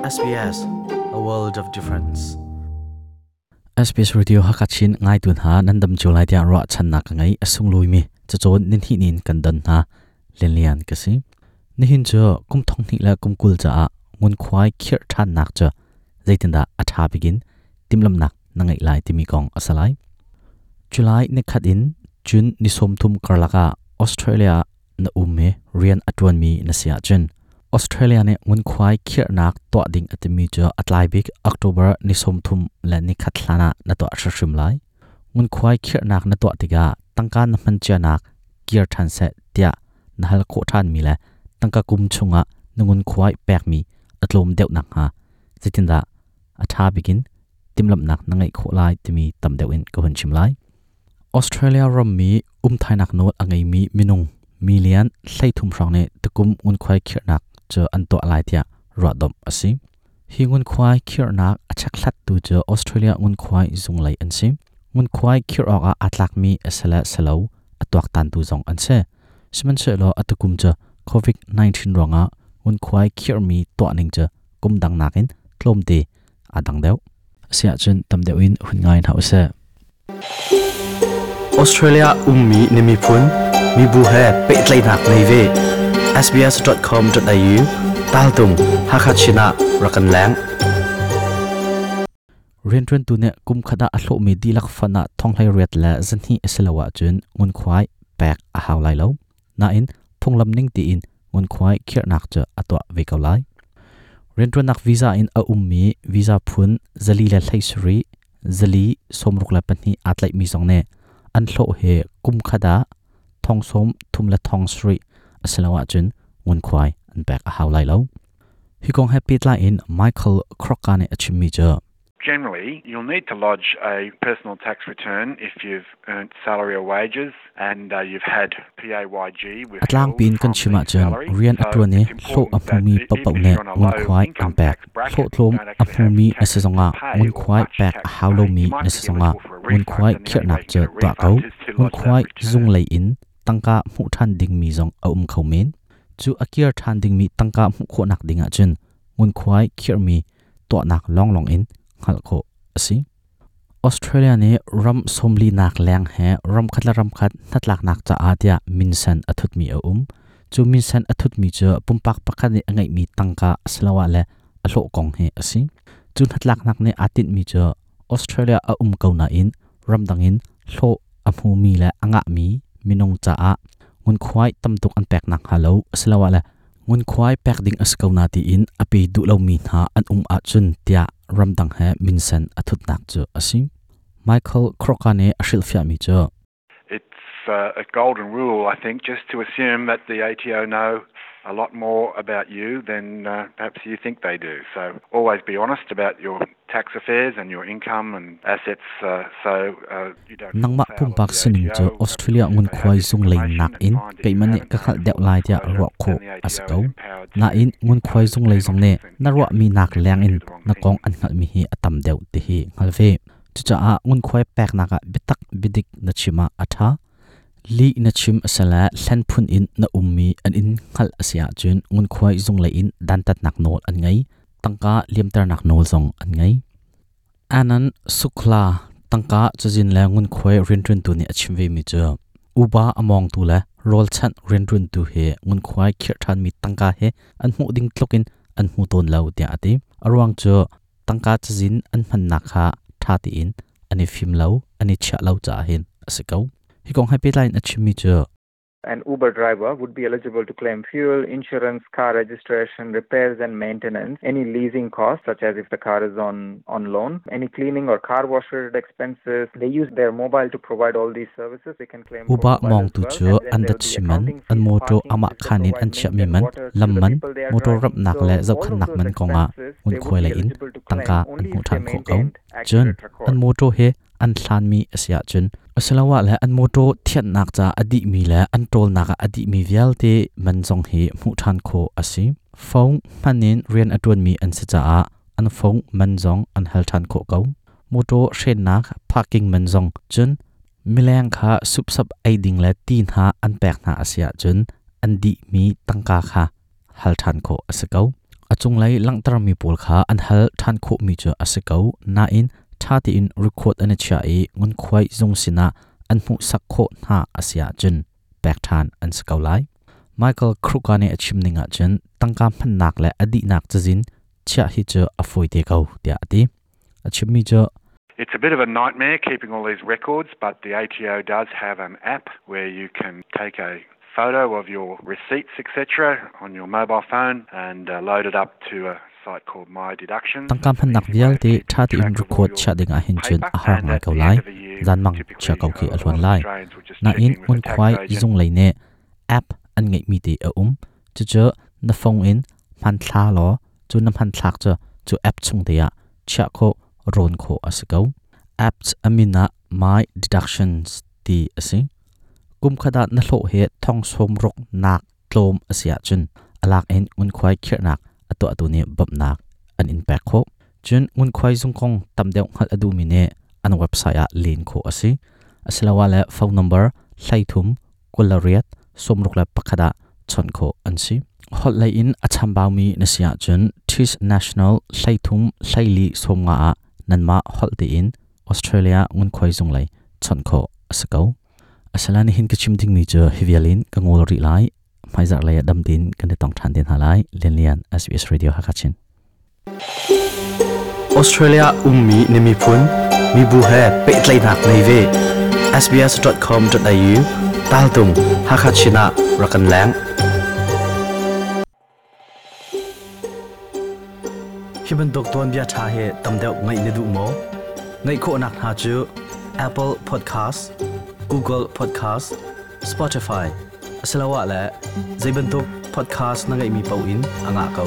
SBS, a world of difference. SBS Radio Hakachin ngaitu hna nan dam cio lai tiah ruahchannak ka ngei. A sunglawi mi cacawn nin hi nin kan don hna. Lianlian ka si. Nihin cu kum thong hnih le kum 20 caah ngunkhuai khirh ṭhannak cu zeitindah a ṭha bikin timhlamnak na ngeih lai timi kong a si lai. July nikhat in June ni 30 karlak ah Australia na um i rian a ṭuanmi na si ahcun Australia nih ngunkhuai khirhnak tuah ding a timi cu a tlai bik October ni 30 le nikhat hlan ah na tuah hrimhrim lai. Ngunkhuai khirhnak na tuah tikah tangka na hman cianak kir ṭhan seh tiah na hal khawh ṭhanmi le tangka kum chungah na ngunkhuai pekmi a tlawm deuh nakhnga zeitindah a ṭha bikin timhlamhnak na ngeih khawh lai timi tam deuh in ka hun chim lai. Australia rammi umthainak nawl a ngeimi minung million 13 hrawng nih tukum ngunkhuai khirhnak cu an tuah lai tiah ruahdomh a si. Hi ngunkhuai khirhnak a chekhlattu cu Australia ngunkhuai zunglei an si. Ngunkhuai khirh awkah aa tlakmi a si le si lo a tuaktantu zong an si. Sihmanhsehlaw a tukum cu COVID-19 ruangah ngunkhuai khirhmi tuahning cu kum dang nakin tlawmte aa dang deuh. Asiahcun tam deuh in hun ngai hna usih. Australia ummi na miphun mibu he pehtlaihnak nei ve. sbs.com.au taltung Hakha Chin ah rak kan leng. Rianṭuantu nih kum khat ah a hlawhmi dihlak fund ah thonghlei riat le zahnih a si lo ahcun ngunkhuai pek a hau lai lo. Nain phunglam ning tiin ngunkhuai khirhnak cu a tuah ve ko lai. Rianṭuannak visa in a ummi visa phun 417, 462 aa tlaihmi zong nih an hlawh hi kum khat ah 33,000 a si lo ahcun ngunkhuai an pek a hau lai lo. Hi kong he pehtlai in Michael Krocka nih a chimmi cu Generally, you'll need to lodge a personal tax return if you've earned salary or wages and you've had PAYG A tlangpi in kan chim ahcun rian a ṭuan i hlawh a hmumi paohpaoh nih ngunkhuai an pek. Hlawhtlawm a hmumi na si zongah ngunkhuai pek a hau lomi na si zongah ngunkhuai khirhnak cu tuah ko. Ngunkhuai zung lei in tangka hmuh ṭhan dingmi zong a um kho men. Cu a kir ṭhan dingmi tangka hmuh khawhnak ding ahcun ngunkhuai khirhmi tuahnak lawnglawng in hngalh khawh a si. Australia nih ram sawmlinak leng he ramkhat le ramkhat hnatlaknak caah tiah minsen a thutmi a um. Cu minsen a thutmi cu pumpak pakhat nih a ngeihmi tangka asiloah le a hlawh kong hi a si. Cu hnatlaknak nih aa tinhmi cu Australia a um ko nain ramdang in hlawh a hmumi le a ngahmi minung caah ngunkhuai tamtuk an pek nakhnga lo asiloah le ngunkhuai pek ding a si ko na tiin a pe duh lomi hna an um ahcun tiah ramdang he minsen a thutnak cu a si. Michael Crocker nih a hrilhfiahmi cu It's a golden rule, I think, just to assume that the ATO know a lot more about you than perhaps you think they do. So always be honest about your tax affairs and your income and assets so you don't Nangmah pumpak sining cu Australia ngunkhuai zung lei nakin keimah nih ka hngalh deuh lai tiah ruah khawh a si ko. Nain ngunkhuai zung lei zong nih na ruahmi nak leng in na kong an hngalhmi hi a tam deuh ti hi hngal ve. Cucaah ngunkhuai peknak ah biatak biadik na chim ah a ṭha. Lih na chim a si le hlen phun in na ummi an in hngalh a si ahcun ngunkhuai zung lei in dantatnak nawl an ngei. Tangka liamternak nawl zong an ngei. Anand Sukla tangka cazin le ngunkhuai rianṭuantu nih a chim vemi cu uba a mawngtu le rawlchanh rianṭuantu hi ngunkhuai khirh ṭhanmi tangka hi an hmuh ding tluk in an hmu tawn lo tiah a ti. A ruang cu tangka cazin an hmannak kha ṭha tein an i fim lo, an i chiah lo caah hin a si ko. Hi kong he pehtlai in a chimmi cu An Uber driver would be eligible to claim fuel, insurance, car registration, repairs and maintenance, any leasing costs, such as if the car is on loan, any cleaning or car wash related expenses. They use their mobile to provide all these services. They can claim Uber mawngtu cu an dat si man, an mawṭaw amah khaan in an chiahmi man, lam man, mawṭaw ramhnak le zohkhenhnak man kongah ngunkhuai lei in tangka an hmuh ṭhan khawh ko. Cun an mawṭaw hi an hlanmi a si ahcun asiloah le an mawṭaw thianhnak ca a dihmi le an ṭawlnak ah a dihmi vialte man zong hi hmuh ṭhan khawh a si. Phone hman in rian a ṭuanmi an si caah an phone man zong an hal ṭhan khawh ko. Mawṭaw hrennak parking man zong cun mileng kha supsap ei ding le ti hna an pek hna a si ahcun an dihmi tangka kha hal ṭhan khawh a si ko. A cunglei langhtermi pawl kha an hal ṭhan khawhmi cu a si ko nain ṭha tein record an i chiah i ngunkhuai zung sinah an hmuhsak khawh hna a si ahcun pek ṭhan an si ko lai. Michael Kruka nih a chim ning ahcun tangka hmannak le a dihnak cazin chiah hi cu a fawi te ko tiah a ti. A chimmi cu It's a bit of a nightmare keeping all these records, but the ATO does have an app where you can take a photo of your receipts, etc., on your mobile phone and load it up to a site called My Deductions. Tangka hmannak vialte ṭha tein record chiah ding ah hin cun a har ngai ko lai. Zanmang chia ko khi a hluan lai. Nain ngunkhuai zung lei nih app an ngeihmi te a um. Cucu na phone in hmanthla law cu na hmanthlak cu cu app chung te ah chiah khawh rawn khawh a si ko. Apps a min ah My Deductions ti a si. Kum khat ah na hlawh hi thong sawm ruk nak tlawm a si ahcun a lak in ngunkhuai khirhnak a tuahtu nih bawmhnak an in pek khawh. Cun ngunkhuai zung kong tam deuh hngalh a duhmi nih an website ah len khawh a si. Asiloah le phone number 33 28 61 ah chawnh khawh an si. Holh lei in a chambaumi na si ahcun TIS National 33 14 50 ah nanmah holh tein Australia ngunkhuai zung lei chawnh khawh a si ko. Asala nihin ka chim dingmi cu hi vial in ka ngol rih lai. Hmaizarh lei ah dam tein kan i tong ṭhan te hna lai. Lianlian SBS Radio Hakachin. Australia ummi na miphun, mibu he pehtlaihnak nei ve. sbs.com.au taltung Hakha Chin ah rak kan leng. Hi bantuk tuanbia ṭha hi tam deuh ngaih na duh maw? Ngaih khawhnak hna cu Apple Podcast, Google Podcast, Spotify asiloah le zei bantuk podcast na ngeihmi paoh in a ngah ko.